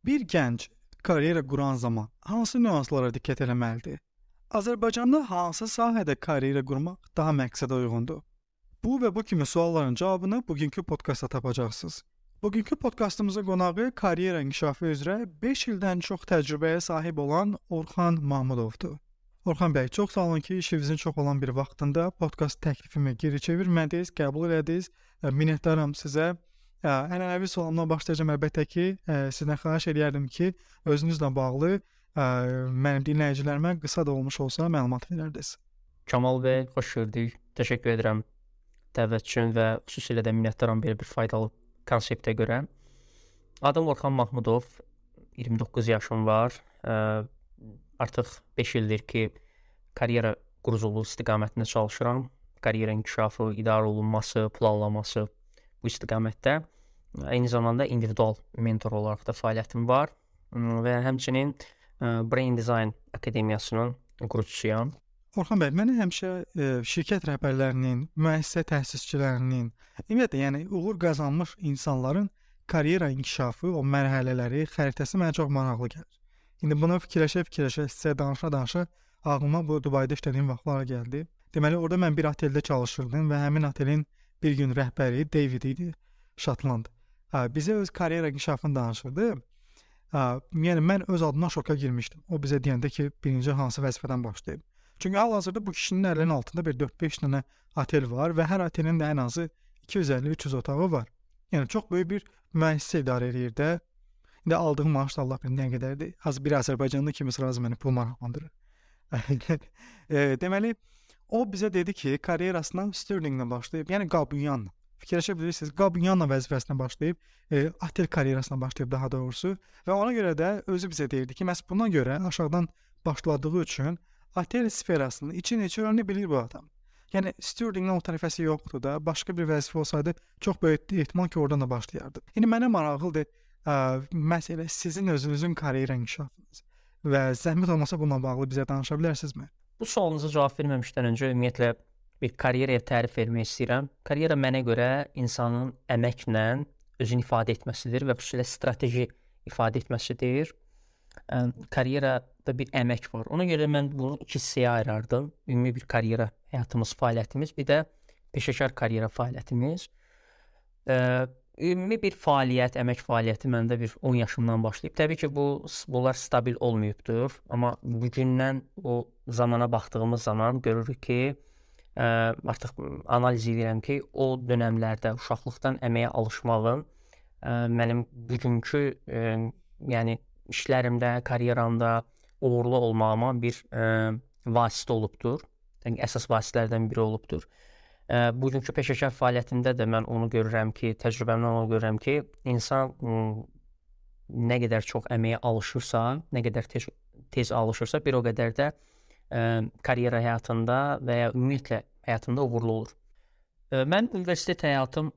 Bir gənc karyera quran zaman hansı nüanslara diqqət etməlidir? Azərbaycanda hansı sahədə karyera qurmaq daha məqsədə uyğundur? Bu və bu kimi sualların cavabını bugünkü podkastda tapacaqsınız. Bugünkü podkastımızın qonağı karyera inkişafı üzrə 5 ildən çox təcrübəyə sahib olan Orxan Mahmudovdur. Orxan bəy, çox sağ olun ki, işinizin çox olan bir vaxtında podkast təklifimi geri çevirmədiniz, qəbul elədiniz. Minnətdaram sizə. Ənənəvi sualımla başlayacağım. Əlbəttə ki, sizdən xahiş edərdim ki, özünüzlə bağlı mənim dinləyicilərimə qısa da olmuş olsa məlumat verərdiniz. Kamal bəy, xoş gördük. Təşəkkür edirəm dəvət üçün və xüsusilə də minnətdaram belə bir faydalı konseptə görə. Adım Orxan Mahmudov, 29 yaşım var. Artıq 5 ildir ki, karyera quruculuğu istiqamətində çalışıram. Karyera inkişafı, idarə olunması, planlaması bu istiqamətdə. Eyni zamanda individual mentor olaraq da fəaliyyətim var və həmçinin Brain Design Akademiyasının qurucusuyam. Orxan bəy, mən həmişə şirkət rəhbərlərinin, müəssisə təsisçilərinin, ümumiyyətlə, yəni uğur qazanmış insanların karyera inkişafı, o mərhələləri, xəritəsi mənə çox maraqlı gəlir. İndi bunu fikirləşə-fikirləşə, sizə danışa-danışa ağlıma bu Dubayda işlədiyim vaxtlar gəldi. Deməli, orada mən bir oteldə çalışırdım və həmin otelin bir gün rəhbəri David idi, Şotland. Bizə öz karyera inkişafını danışırdı. Yəni mən öz adıma şoka girmişdim. O bizə deyəndə ki, birinci hansı vəzifədən başlayıb. Çünki hal-hazırda bu kişinin əlinin altında bir 4-5 dənə otel var və hər otelin də ən azı 250-300 otağı var. Yəni çox böyük bir müəssisə idarə edir də. İndi aldığım maaş da Allah bilir nə qədərdir. Az bir Azərbaycanlı kimi razı məni pul maraqlandırır. Deməli, o bizə dedi ki, karyerasına stewardinglə başlayıb, yəni qabunyanla. Fikirləşə bilirsiniz, qabunyanla vəzifəsinə başlayıb, otel karyerasına başlayıb daha doğrusu və ona görə də özü bizə deyirdi ki, məhz buna görə aşağıdan başladığı üçün otel sferasının içini öyrənə bilir bu adam. Yəni stewardinglə o tərəfəsi yoxdur da, başqa bir vəzifə olsaydı çox böyük ehtimal ki, oradan da başlayardı. İndi mənə maraqlıdır, məsələ sizin özünüzün karyera inkişafınız və zəhmət olmasa bununla bağlı bizə danışa bilərsinizmi? Bu sualınıza cavab verməmişdən öncə ümumiyyətlə bir karyeraya tərif vermək istəyirəm. Karyera mənə görə insanın əməklə özünü ifadə etməsidir və xüsusilə strateji ifadə etməsidir. Karyerada bir əmək var. Ona görə mən bunu iki hissəyə ayırardım. Ümumi bir karyera həyatımız, fəaliyyətimiz, bir də peşəkar karyera fəaliyyətimiz. Ümumi bir fəaliyyət, əmək fəaliyyəti məndə bir 10 yaşımdan başlayıb. Təbii ki, bunlar stabil olmayıbdır, amma bugündən o zamana baxdığımız zaman görürük ki, artıq analiz edirəm ki, o dönəmlərdə uşaqlıqdan əməyə alışmağım mənim bugünkü yəni işlərimdə, karyeramda uğurlu olmağıma bir vasitə olubdur. Yəni əsas vasitələrdən biri olubdur. Bugünkü peşəkar fəaliyyətində də mən onu görürəm ki, təcrübəmdən onu görürəm ki, insan nə qədər çox əməyə alışırsa, nə qədər tez alışırsa, bir o qədər də karyera həyatında və ya ümumiyyətlə həyatında uğurlu olur. Mən universitet həyatım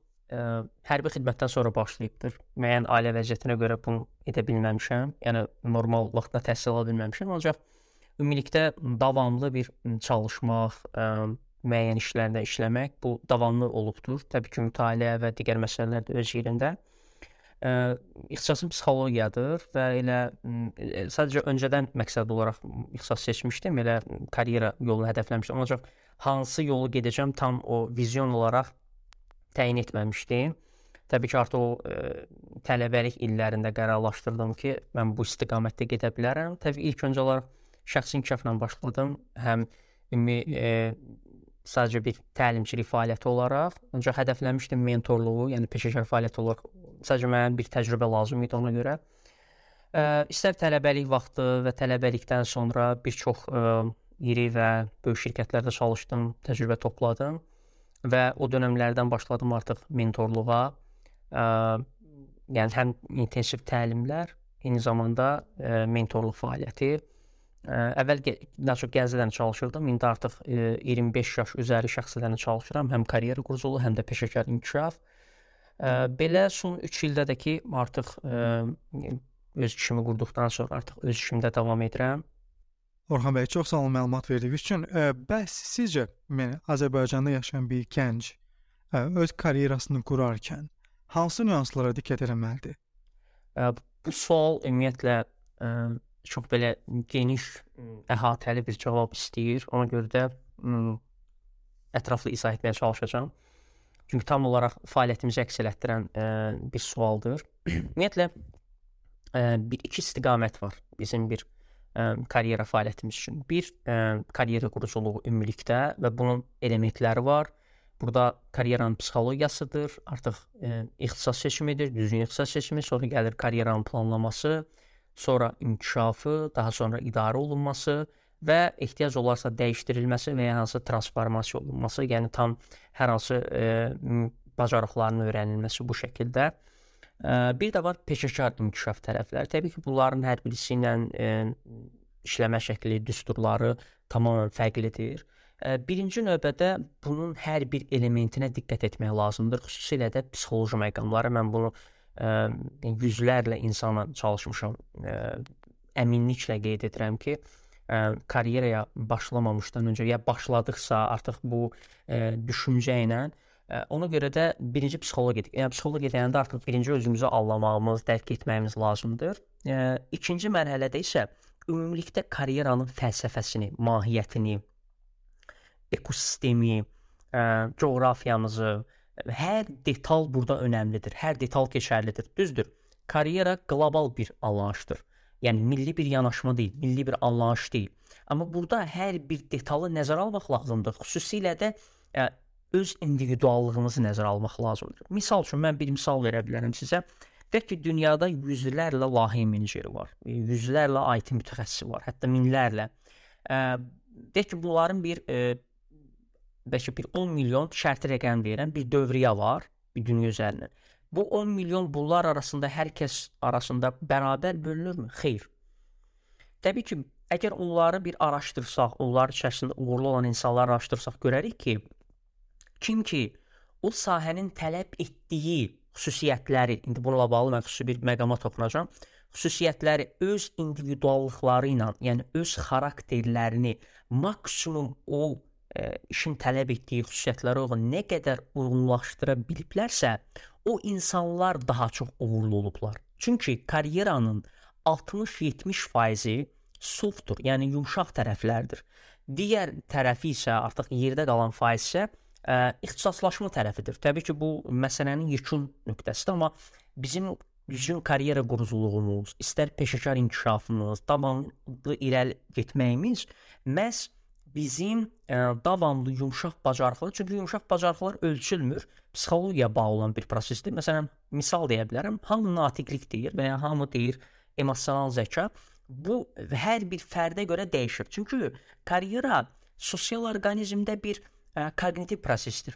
hərbi xidmətdən sonra başlayıbdır. Müəyyən ailə vəziyyətinə görə bunu edə bilməmişəm. Yəni normal vaxtda təhsil ala bilməmişəm. Ancaq ümumilikdə davamlı bir çalışmaq, müəyyən işlərdə işləmək bu davamlı olubdur. Təbii ki, mütaliə və digər məsələlər də öz yerində. İxtisasım psixologiyadır və elə sadəcə öncədən məqsəd olaraq ixtisas seçmişdim, elə karyera yolunu hədəfləmişdim. Ancaq hansı yolu gedəcəm tam o vizyon olaraq təyin etməmişdim. Təbii ki, artıq o tələbəlik illərində qərarlaşdırdım ki, mən bu istiqamətdə gedə bilərəm. Təbii ilk öncə olaraq şəxsi inkişafla başladım. Həm sadəcə bir təlimçilik fəaliyyəti olaraq, ancaq hədəfləmişdim mentorluğu, yəni peşəkar fəaliyyət olaraq. Sadəcə mənə bir təcrübə lazım idi ona görə. İstər tələbəlik vaxtı və tələbəlikdən sonra bir çox iri və böyük şirkətlərdə çalışdım, təcrübə topladım və o dönəmlərdən başladım artıq mentorluğa. Yəni həm intensiv təlimlər, eyni zamanda mentorluq fəaliyyəti. Əvvəl daha çox gənclərlə çalışırdım. İndi artıq 25 yaş üzəri şəxslərlə çalışıram. Həm karyera quruculuğu, həm də peşəkar inkişaf. Belə son 3 ildə də ki, artıq öz işimi qurduqdan sonra artıq öz işimdə davam edirəm. Orxan bəy, çox sağ olun məlumat verdiyiniz üçün. Bəs sizcə Azərbaycanda yaşayan bir gənc öz karyerasını qurarkən hansı nüanslara diqqət etməlidir? Bu sual ümumiyyətlə çox belə geniş, əhatəli bir cavab istəyir. Ona görə də ətraflı izah etməyə çalışacağam. Çünki tam olaraq fəaliyyətimizi əks etdirən bir sualdır. Ümumiyyətlə iki istiqamət var bizim bir karyera fəaliyyətimiz üçün. Bir, karyera quruculuğu ümumilikdə və bunun elementləri var. Burada karyeranın psixologiyasıdır, artıq ixtisas seçimidir, düzgün ixtisas seçimi, sonra gəlir karyeranın planlaması, sonra inkişafı, daha sonra idarə olunması və ehtiyac olarsa dəyişdirilməsi və ya hansı transformasiya olunması, yəni tam hər hansı bacarıqların öyrənilməsi bu şəkildə. Bir də var peşəkar inkişaf tərəfləri. Təbii ki, bunların hər birisi ilə işləmə şəkli, düsturları tamamilə fərqlidir. Birinci növbədə bunun hər bir elementinə diqqət etmək lazımdır. Xüsusilə də psixoloji məqamları. Mən bunu yüzlərlə insana çalışmışam. Əminliklə qeyd edirəm ki, karyeraya başlamamışdan öncə ya başladıqsa artıq bu düşüncə ilə ona görə də birinci psixologiya. Yəni psixologiya deyəndə artıq birinci özümüzü anlamağımız, dərk etməyimiz lazımdır. İkinci mərhələdə isə ümumilikdə karyeranın fəlsəfəsini, mahiyyətini, ekosistemi, coğrafiyamızı, hər detal burada önəmlidir. Hər detal keçərlidir. Düzdür. Karyera qlobal bir anlayışdır. Yəni milli bir yanaşma deyil, milli bir anlayış deyil. Amma burada hər bir detalı nəzərə almaq lazımdır. Xüsusilə də öz individuallığımızı nəzərə almaq lazımdır. Misal üçün mən bir misal verə bilərəm sizə. Deyək ki, dünyada yüzlərlə layihə meneceri var, yüzlərlə IT mütəxəssisi var, hətta minlərlə. Deyək ki, bunların bəlkə bir 10 milyon şərti rəqəm deyirəm, bir dövriyyə var bir dünya üzərindən. Bu 10 milyon bunlar arasında hər kəs arasında bərabər bölünürmü? Xeyr. Təbii ki, əgər onları bir araşdırsaq, onlar içərisində uğurlu olan insanları araşdırsaq görərik ki, kim ki o sahənin tələb etdiyi xüsusiyyətləri, indi bununla bağlı mən xüsusi bir məqama toxunacağam, xüsusiyyətləri öz individuallıqları ilə, yəni öz xarakterlərini maksimum o işin tələb etdiyi xüsusiyyətlərə uyğun nə qədər uyğunlaşdıra biliblərsə, o insanlar daha çox uğurlu olublar. Çünki karyeranın 60-70% softdur, yəni yumşaq tərəflərdir. Digər tərəfi isə artıq yerdə qalan faiz isə ixtisaslaşma tərəfidir. Təbii ki, bu məsələnin yekun nöqtəsidir, amma bizim düzgün karyera quruculuğumuz, istər peşəkar inkişafımız, davamlı irəli getməyimiz məhz bizim davamlı yumşaq bacarıqlar, çünki yumşaq bacarıqlar ölçülmür, psixologiyaya bağlı olan bir prosesdir. Məsələn, misal deyə bilərəm, hamı natiqlik deyir və ya hamı deyir emosional zəka. Bu hər bir fərdə görə dəyişir. Çünki karyera sosial orqanizmdə bir kognitiv prosesdir.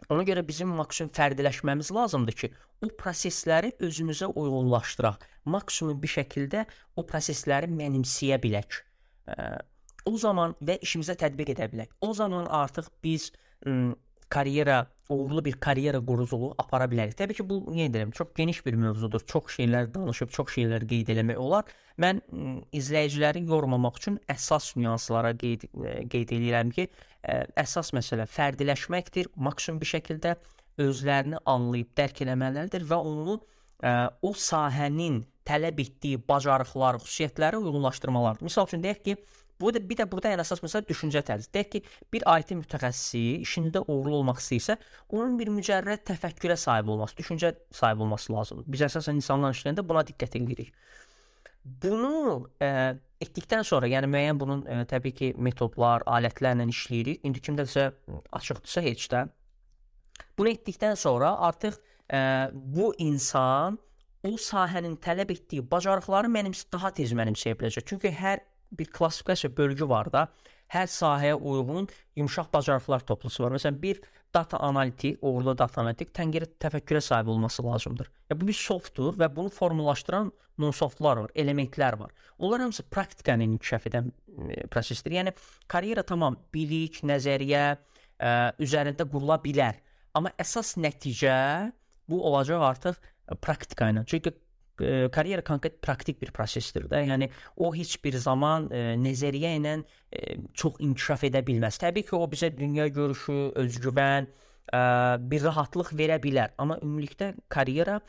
Ona görə bizim maksimum fərdiləşməmiz lazımdır ki, o prosesləri özümüzə uyğunlaşdıraq. Maksimum bir şəkildə o prosesləri mənimsəyə bilək. O zaman və işimizə tətbiq edə bilək. O zaman artıq biz uğurlu bir karyera quruculuğu apara bilərik. Təbii ki, bu çox geniş bir mövzudur. Çox şeylər danışıb, çox şeylər qeyd eləmək olar. Mən izləyiciləri yormamaq üçün əsas nüanslara qeyd edirəm ki, əsas məsələ fərdiləşməkdir. Maksimum bir şəkildə özlərini anlayıb dərk eləməlidir və onu o sahənin tələb etdiyi bacarıqlar, xüsusiyyətləri uyğunlaşdırmalardır. Misal üçün deyək ki, bir də burada ən əsas məsələ düşüncə tərzi. Deyək ki, bir IT mütəxəssisi işində uğurlu olmaq istəyirsə, onun bir mücərrəd təfəkkürə sahib olması, düşüncə sahib olması lazımdır. Biz əsasən insanlarla işləyəndə buna diqqət edirik. Bunu etdikdən sonra, yəni müəyyən bunun təbii ki, metodlar, alətlərlə işləyirik. İndi kimdəsə açıqdırsa heç də. Bunu etdikdən sonra artıq bu insan o sahənin tələb etdiyi bacarıqları daha tez mənimsəyə biləcək. Çünki hər bir klassifikasiya bölgü var da, hər sahəyə uyğun yumşaq bacarıqlar toplusu var. Məsələn, bir data analitik, uğurlu data analitik təfəkkürə sahib olması lazımdır. Bu bir softdur və bunu formalaşdıran non-softlar var, elementlər var. Onlar hamısı praktikanı inkişaf edən prosesdir. Yəni, karyera tamam, bilik, nəzəriyyə üzərində qurula bilər. Amma əsas nəticə bu olacaq artıq praktika ilə. Çünki karyera konkret praktik bir prosesdir də. Yəni o heç bir zaman nəzəriyyə ilə çox inkişaf edə bilməz. Təbii ki, o bizə dünya görüşü, özgüvən, bir rahatlıq verə bilər. Amma ümumilikdə karyera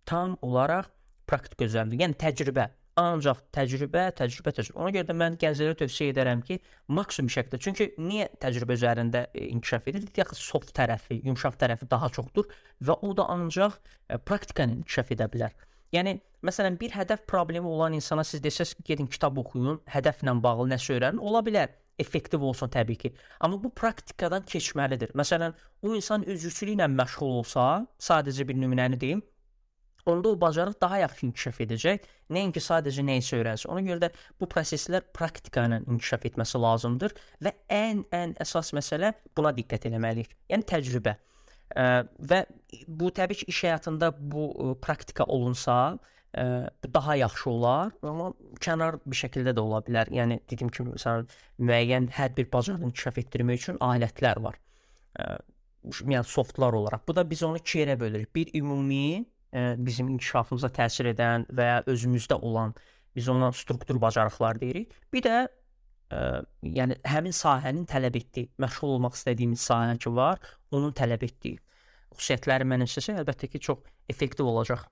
tam olaraq praktika üzərində. Yəni təcrübə. Ancaq təcrübə. Ona görə də mən gənclərə tövsiyə edərəm ki, maksimum şəkildə. Çünki niyə təcrübə üzərində inkişaf edir? Deyək, soft tərəfi, yumşaq tərəfi daha çoxdur və o da ancaq praktika ilə inkişaf edə bilər. Yəni, məsələn, bir hədəf problemi olan insana siz desəz ki, gedin kitab oxuyun, hədəflə bağlı nəsə öyrənin, ola bilər. Effektiv olsun təbii ki. Amma bu praktikadan keçməlidir. Məsələn, o insan üzvçülüklə məşğul olsa, sadəcə bir nümunəni deyim, onda o bacarıq daha yaxşı inkişaf edəcək. Nəinki sadəcə nə isə öyrənsin. Ona görə də bu proseslər praktika ilə inkişaf etməsi lazımdır və ən əsas məsələ buna diqqət etməliyik. Yəni təcrübə. Və bu təbii ki, iş həyatında bu praktika olunsa, bu daha yaxşı olar, amma kənar bir şəkildə də ola bilər. Yəni dediyim kimi, məsələn, müəyyən hər bir bacarığı inkişaf etdirmək üçün alətlər var. Yəni softlar olaraq. Bu da biz onu iki yerə bölürük. Bir ümumi bizim inkişafımıza təsir edən və ya özümüzdə olan, biz ona struktur bacarıqlar deyirik. Bir də yəni həmin sahənin tələb etdiyi, məşğul olmaq istədiyimiz sahə ki var, onun tələb etdiyi xüsusiyyətləri mənimsəsə, əlbəttə ki, çox effektiv olacaq.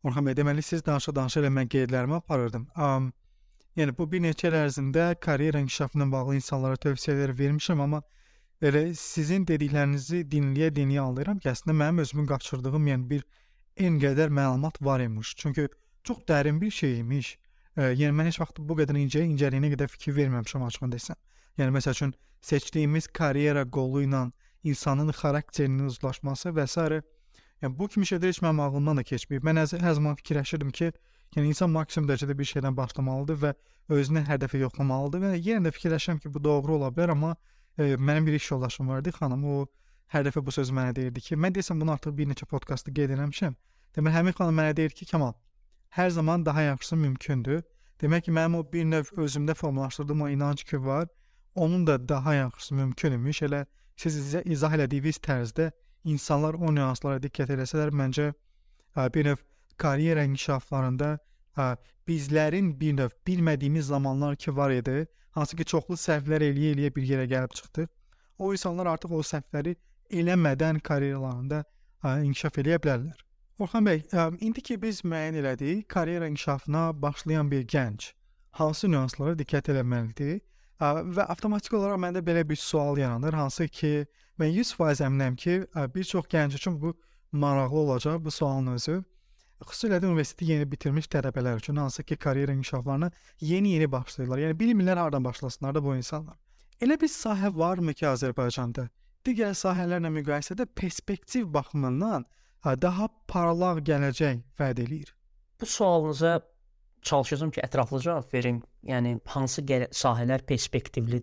Orxan bəy, deməli siz danışa-danışa elə mən qeydlərimi aparırdım. Yəni bu bir neçə il ərzində karyera inkişafı ilə bağlı insanlara tövsiyələr vermişəm, amma elə sizin dediklərinizi dinləyə anlayıram ki, əslində mənim özümün qaçırdığım yəni bir en qədər məlumat var imiş. Çünki çox dərin bir şey imiş. Yəni mən heç vaxt bu qədər incəliyinə qədər fikir verməmişəm açığını desəm. Yəni məsəl üçün seçdiyimiz karyera qolu ilə insanın xarakterinin uzlaşması və s. Yəni bu kimi şeylər heç mənim ağlımdan da keçməyib. Mən hər zaman fikirləşirdim ki, yəni insan maksimum dərəcədə bir şeydən başlamalıdır və özünə hədəfi yoxlamalıdır və yenə də fikirləşirəm ki, bu doğru ola bilər, amma mənim bir iş yoldaşım vardı, xanım, o hər dəfə bu sözü mənə deyirdi ki, mən desəm bunu artıq bir neçə podkastda qeyd eləmişəm. Demək, həmin xanım mənə deyir ki, Kamal, hər zaman daha yaxşısı mümkündür. Demək ki, mənim o bir növ özümdə formalaşdırdığım o inanc ki var, onun da daha yaxşısı mümkün imiş. Elə siz izah elədiyiniz tərzdə insanlar o nüanslara diqqət eləsələr, məncə bir növ karyera inkişaflarında bizlərin bir növ bilmədiyimiz zamanlar ki var idi, hansı ki çoxlu səhvlər eləyə bir yerə gəlib çıxdıq. O insanlar artıq o səhvləri eləmədən karyeralarında inkişaf eləyə bilərlər. Orxan bəy, indi ki biz müəyyən elədik, karyera inkişafına başlayan bir gənc hansı nüanslara diqqət eləməlidir? Və avtomatik olaraq məndə belə bir sual yaranır, hansı ki mən 100% əminəm ki, bir çox gənc üçün bu maraqlı olacaq, bu sualın özü. Xüsusilə də universiteti yeni bitirmiş tələbələr üçün, hansı ki karyera inkişaflarına yeni başlayırlar. Yəni bilmirlər hardan başlasınlar da bu insanlar. Elə bir sahə varmı ki Azərbaycanda digər sahələrlə müqayisədə perspektiv baxımından daha parlaq gələcək vəd eləyir? Bu sualınıza çalışacağam ki, ətraflı cavab verim. Yəni hansı sahələr perspektivli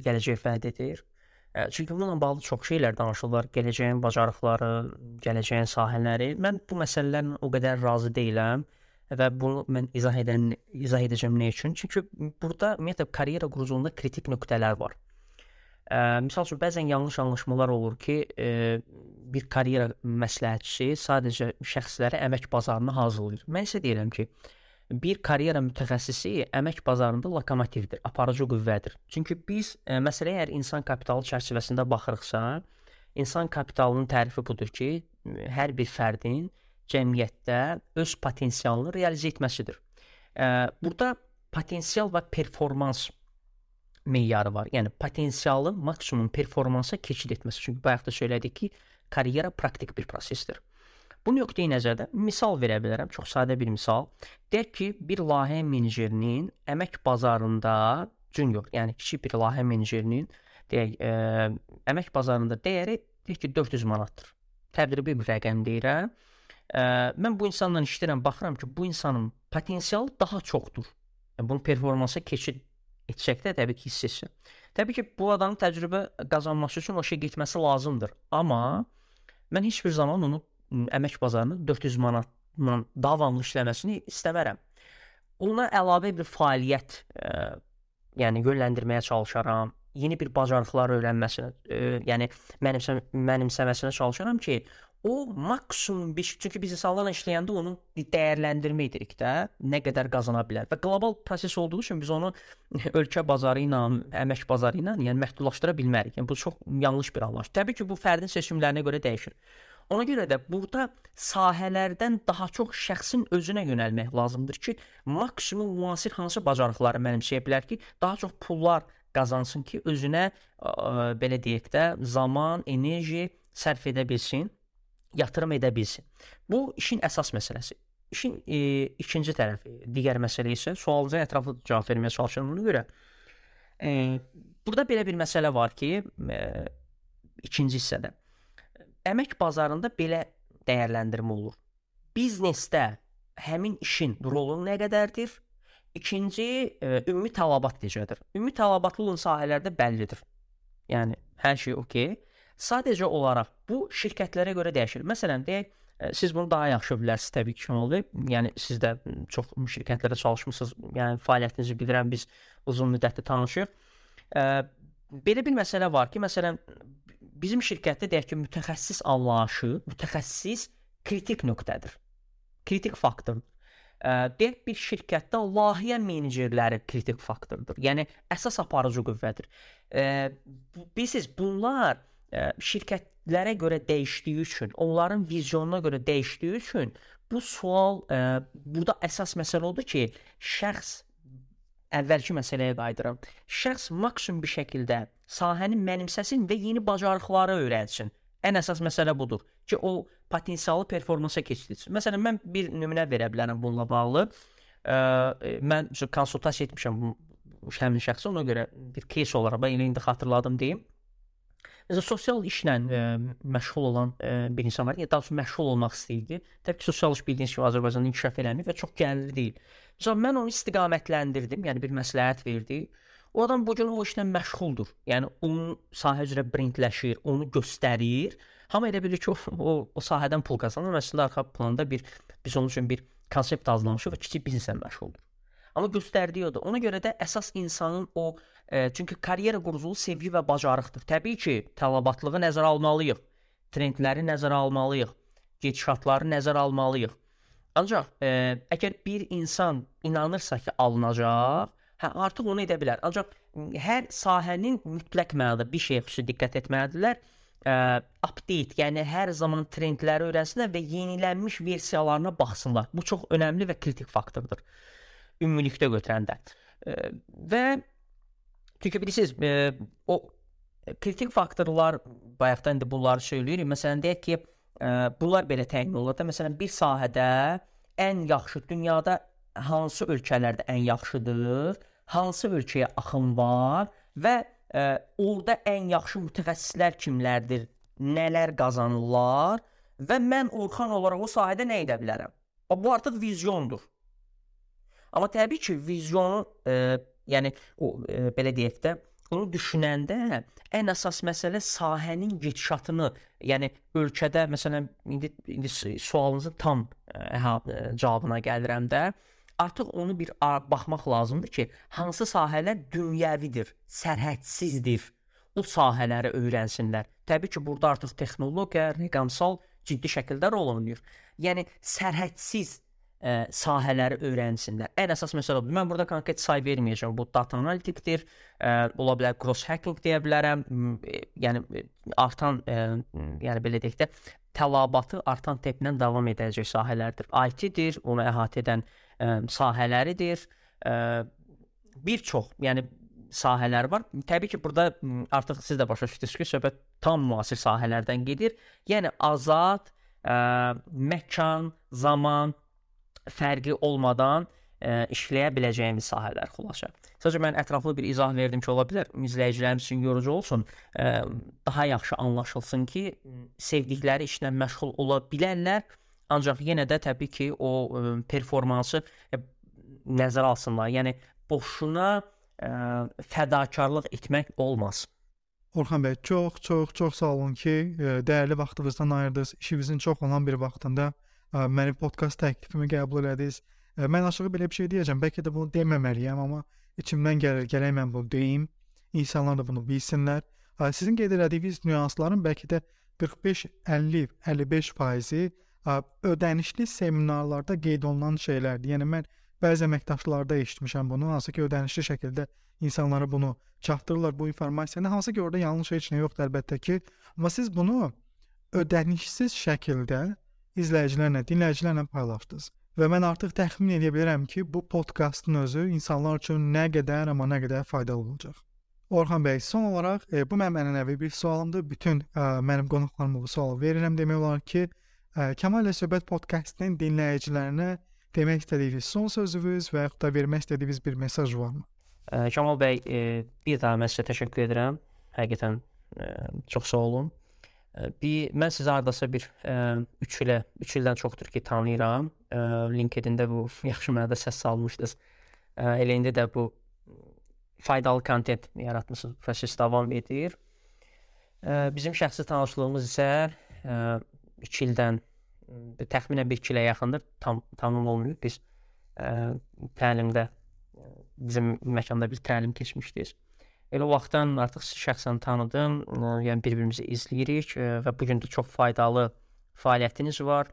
gələcək vəd edir? Çünki bununla bağlı çox şeylər danışılır. Gələcəyin bacarıqları, gələcəyin sahələri. Mən bu məsələlərlə o qədər razı deyiləm və bunu mən izah edəcəm nə üçün? Çünki burada ümumiyyətlə karyera quruculuğunda kritik nöqtələr var. Misal üçün, bəzən yanlış anlaşmalar olur ki, bir karyera məsləhətçisi sadəcə şəxsləri əmək bazarına hazırlayır. Mən isə deyirəm ki, bir karyera mütəxəssisi əmək bazarında lokomotivdir, aparıcı qüvvədir. Çünki biz məsələyə əgər insan kapitalı çərçivəsində baxırıqsa, insan kapitalının tərifi budur ki, hər bir fərdin cəmiyyətdə öz potensialını realizə etməsidir. Burada potensial və performans meyarı var. Yəni potensialın maksimum performansa keçid etməsi. Çünki bayaq da söylədik ki, karyera praktik bir prosesdir. Bu nöqteyi nəzərdə misal verə bilərəm, çox sadə bir misal. Deyək ki, bir layihə menecerinin əmək bazarında junior, yəni kiçik bir layihə menecerinin əmək bazarında dəyəri deyək ki 400 manatdır. Təqribi bir rəqəm deyirəm. Mən bu insanla işləyirəm, baxıram ki, bu insanın potensialı daha çoxdur. Bunun performansa keçid etsək də təbii ki, hiss etsin. Təbii ki, bu adamın təcrübə qazanması üçün o şey getməsi lazımdır. Amma mən heç bir zaman onu əmək bazarına 400 manatla davamlı işləməsini istəmərəm. Ona əlavə bir fəaliyyət yəni yönləndirməyə çalışaram. Yeni bir bacarıqlar öyrənməsinə, yəni mənimsəməsinə çalışaram ki, o maksimum bir, çünki biz insanlarla işləyəndə onu dəyərləndirmə edirik də, nə qədər qazana bilər. Və qlobal proses olduğu üçün biz onu ölkə bazarı ilə, əmək bazarı ilə yəni məhdudlaşdıra bilmərik. Yəni bu çox yanlış bir anlayış. Təbii ki, bu fərdin seçimlərinə görə dəyişir. Ona görə də burada sahələrdən daha çox şəxsin özünə yönəlmək lazımdır ki, maksimum müasir hansı bacarıqları mənimsəyə bilər ki, daha çox pullar qazansın ki, özünə belə deyək də zaman, enerji sərf edə bilsin, yatırım edə bilsin. Bu işin əsas məsələsi. İşin ikinci tərəfi, digər məsələ isə sualınıza ətraflı cavab verməyə çalışıram ona görə. Burada belə bir məsələ var ki, ikinci hissədə əmək bazarında belə dəyərləndirmə olur. Biznesdə həmin işin rolu nə qədərdir? İkinci, ümumi tələbat necədir? Ümumi tələbatlı olan sahələrdə bəllidir. Yəni, hər şey okey. Sadəcə olaraq bu şirkətlərə görə dəyişir. Məsələn, deyək, siz bunu daha yaxşı bilərsiniz təbii ki, Şenol bəy. Yəni, siz də çox şirkətlərdə çalışmısınız. Yəni, fəaliyyətinizi bilirəm, biz uzun müddətli tanışıq. Belə bir məsələ var ki, məsələn, bizim şirkətdə deyək ki, mütəxəssis anlayışı, mütəxəssis kritik nöqtədir. Kritik faktordur. Deyək bir şirkətdə layihə menecerləri kritik faktordur. Yəni əsas aparıcı qüvvədir. Bilirsiniz, bunlar şirkətlərə görə dəyişdiyi üçün, onların vizyonuna görə dəyişdiyi üçün bu sual burada əsas məsələ odur ki, şəxs əvvəlki məsələyə qayıdıram. Şəxs maksimum bir şəkildə sahəni mənimsəsin və yeni bacarıqları öyrənsin. Ən əsas məsələ budur ki, o potensialı performansa keçirilsin. Məsələn, mən bir nümunə verə bilərəm bununla bağlı. Mən konsultasiya etmişəm həmin şəxsə, ona görə bir case olaraq mən indi xatırladım deyim. Məsələn, sosial işlə məşğul olan bir insan var. Daha doğrusu məşğul olmaq istəyirdi. Təbii ki, sosial iş bildiyiniz kimi Azərbaycanda inkişaf eləmir və çox gəlirli deyil. Məsələn, mən onu istiqamətləndirdim, yəni bir məsləhət verdi. O adam bu gün o işlə məşğuldur. Yəni onun sahə üzrə brendləşir, onu göstərir. Hamı elə bilir ki, o sahədən pul qazanır. Əslində arxa planda biz onun üçün bir konsept hazırlamışıq və kiçik bizneslə məşğuldur. Amma göstərdiyi odur. Ona görə də əsas insanın o çünki karyera quruculuğu sevgi və bacarıqdır. Təbii ki, tələbatlığı nəzərə almalıyıq. Trendləri nəzərə almalıyıq. Gedişatları nəzərə almalıyıq. Ancaq əgər bir insan inanırsa ki, alınacaq, artıq onu edə bilər. Ancaq hər sahənin mütləq mənada bir şeyə xüsusi diqqət etməlidirlər. Update, yəni hər zaman trendləri öyrənsinlər və yenilənmiş versiyalarına baxsınlar. Bu çox önəmli və kritik faktordur. Ümumilikdə götürəndə. Və çünki bilirsiniz, o kritik faktorlar bayaqdan indi bunları söyləyirik. Məsələn, deyək ki, bunlar belə təyin olur da, məsələn, bir sahədə ən yaxşı dünyada hansı ölkələrdə ən yaxşıdır, hansı ölkəyə axın var və orada ən yaxşı mütəxəssislər kimlərdir, nələr qazanırlar və mən Orxan olaraq o sahədə nə edə bilərəm? Bu artıq vizyondur. Amma təbii ki, vizyonu, yəni belə deyək də, onu düşünəndə ən əsas məsələ sahənin gedişatını, yəni ölkədə, məsələn, indi sualınızın tam cavabına gəlirəm də, artıq onu bir baxmaq lazımdır ki, hansı sahələr dünyəvidir, sərhədsizdir, o sahələri öyrənsinlər. Təbii ki, burada artıq texnologiya, rəqəmsal ciddi şəkildə rol oynayır. Yəni, sərhədsiz sahələri öyrənsinlər. Ən əsas məsələ budur. Mən burada konkret say verməyəcəm. Bu data analitikdir, ola bilər cross hacking deyə bilərəm. Yəni artan, yəni belə deyək də, tələbatı artan templə davam edəcək sahələrdir. IT-dir, onu əhatə edən sahələridir. Bir çox, yəni sahələr var. Təbii ki, burada artıq siz də başa düşdünüz ki, söhbət tam müasir sahələrdən gedir. Yəni azad, məkan, zaman fərqi olmadan işləyə biləcəyimiz sahələr xülasə. Sadəcə mən ətraflı bir izah verdim ki, ola bilər izləyicilərimiz üçün yorucu olsun, daha yaxşı anlaşılsın ki, sevdikləri işlə məşğul ola bilərlər, ancaq yenə də təbii ki, o performansı nəzərə alsınlar. Yəni boşuna fədakarlıq etmək olmaz. Orxan bəy, çox sağ olun ki, dəyərli vaxtınızdan ayırdınız. İşinizin çox olan bir vaxtında mənim podkast təklifimi qəbul elədiniz. Mən açığı belə bir şey deyəcəm. Bəlkə də bunu deməməliyəm, amma içimdən gəlir, gərək mən bunu deyim. İnsanlar da bunu bilsinlər. Sizin qeyd elədiyiniz nüansların bəlkə də 45-50-55% ödənişli seminarlarda qeyd olunan şeylərdir. Yəni mən bəzi əməkdaşlarda eşitmişəm bunu, hansı ki, ödənişli şəkildə insanlara bunu çatdırırlar, bu informasiyanı. Hansı ki, orada yanlış heç nə yoxdur əlbəttə ki. Amma siz bunu ödənişsiz şəkildə izləyicilərlə, dinləyicilərlə paylaşdınız. Və mən artıq təxmin edə bilərəm ki, bu podkastın özü insanlar üçün nə qədər faydalı olacaq. Orxan bəy, son olaraq bu mənim ənənəvi bir sualımdır. Bütün mənim qonaqlarıma bu sualı verirəm. Demək olar ki, Kamal ilə Söhbət podkastının dinləyicilərinə demək istədiyiniz son sözünüz və yaxud da vermək istədiyiniz bir mesaj varmı? Kamal bəy, bir daha mən sizə təşəkkür edirəm. Həqiqətən çox sağ olun. Mən sizi hardasa bir 3 ildən çoxdur ki tanıyıram. LinkedIn-də bu yaxşı mənada səs salmışdınız. Elə indi də bu faydalı kontent yaratmısınız. Proses davam edir. Bizim şəxsi tanışlığımız isə 2 ildən təxminən 1-2 ilə yaxındır. Tamam olmuyor. Biz təlimdə bizim məkanda bir təlim keçmişdik. Elə o vaxtdan artıq sizi şəxsən tanıdım. Yəni bir-birimizi izləyirik və bu gün də çox faydalı fəaliyyətiniz var.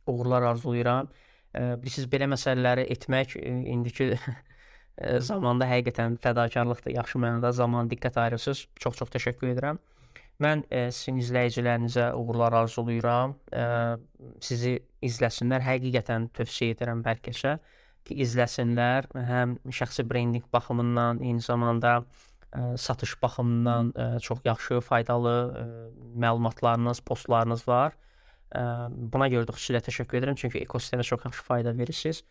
Uğurlar arzulayıram. Siz belə məsələləri etmək indiki zamanda həqiqətən fədakarlıqdır. Yaxşı mənada zaman diqqət ayırırsınız. Çox təşəkkür edirəm. Mən sizin izləyicilərinizə uğurlar arzulayıram. Sizi izləsinlər. Həqiqətən tövsiyə edirəm hər kəsə ki, izləsinlər. Həm şəxsi brendinq baxımından, eyni zamanda satış baxımından çox yaxşı, faydalı məlumatlarınız, postlarınız var. Buna görə də xüsusilə təşəkkür edirəm, çünki ekosistemə çox yaxşı fayda verirsiniz.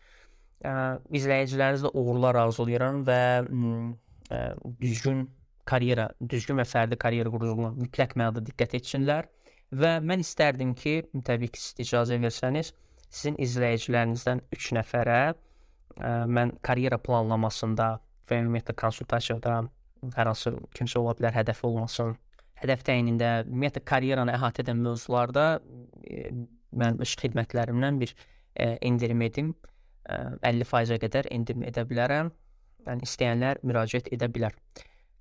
İzləyicilərinizə uğurlar arzulayıram və düzgün və fərdi karyera quruluna mütləq mənada diqqət etsinlər. Və mən istərdim ki, təbii ki, siz icazə versəniz, sizin izləyicilərinizdən 3 nəfərə mən karyera planlamasında və ümumiyyətlə konsultasiyada hər hansı kimsə ola bilər, hədəfi olmasın. Hədəf təyinində, ümumiyyətlə karyeranı əhatə edən mövzularda mən öz xidmətlərimdən bir endirim edim. 50%-ə qədər endirim edə bilərəm. Yəni istəyənlər müraciət edə bilər.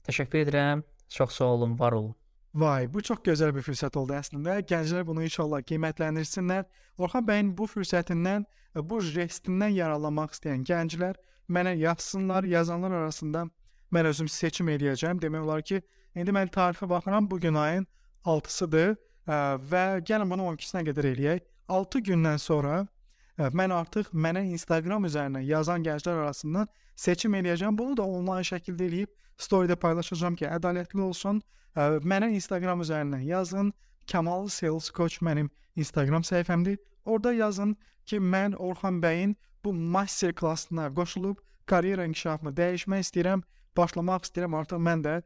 Təşəkkür edirəm. Çox sağ olun, var olun. Vay, bu çox gözəl bir fürsət oldu əslində. Gənclər bunu inşallah qiymətləndirsinlər. Orxan bəyin bu fürsətindən, bu jestindən yararlanmaq istəyən gənclər mənə yazsınlar. Yazanlar arasında mən özüm seçim edəcəm. Demək olar ki, indi mən tarixə baxıram, bu gün ayın 6-sıdır və gəlin bunu 12-sinə qədər eləyək. 6 gündən sonra mən artıq mənə Instagram üzərindən yazan gənclər arasından seçim edəcəm. Bunu da onlayn şəkildə eləyib storydə paylaşacağam ki, ədalətli olsun. Mənə Instagram üzərindən yazın. Kamal Sales Coach mənim Instagram səhifəmdir. Orada yazın ki, mən Orxan bəyin bu master klassına qoşulub karyera inkişafımı dəyişmək istəyirəm, başlamaq istəyirəm. Artıq mən də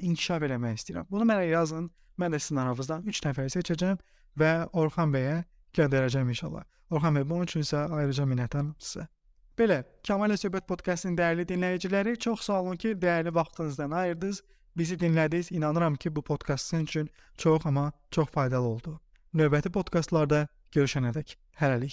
inkişaf eləmək istəyirəm. Bunu mənə yazın. Mən də sizin aranızdan 3 nəfər seçəcəm və Orxan bəyə göndərəcəm inşallah. Orxan bəy, bunun üçün isə ayrıca minnətdaram sizə. Belə, Kamal ilə Söhbət podkastının dəyərli dinləyiciləri, çox sağ olun ki, dəyərli vaxtınızdan ayırdınız. Bizi dinlədiniz. İnanıram ki, bu podkast sizin üçün çox faydalı oldu. Növbəti podkastlarda görüşənədək hələlik.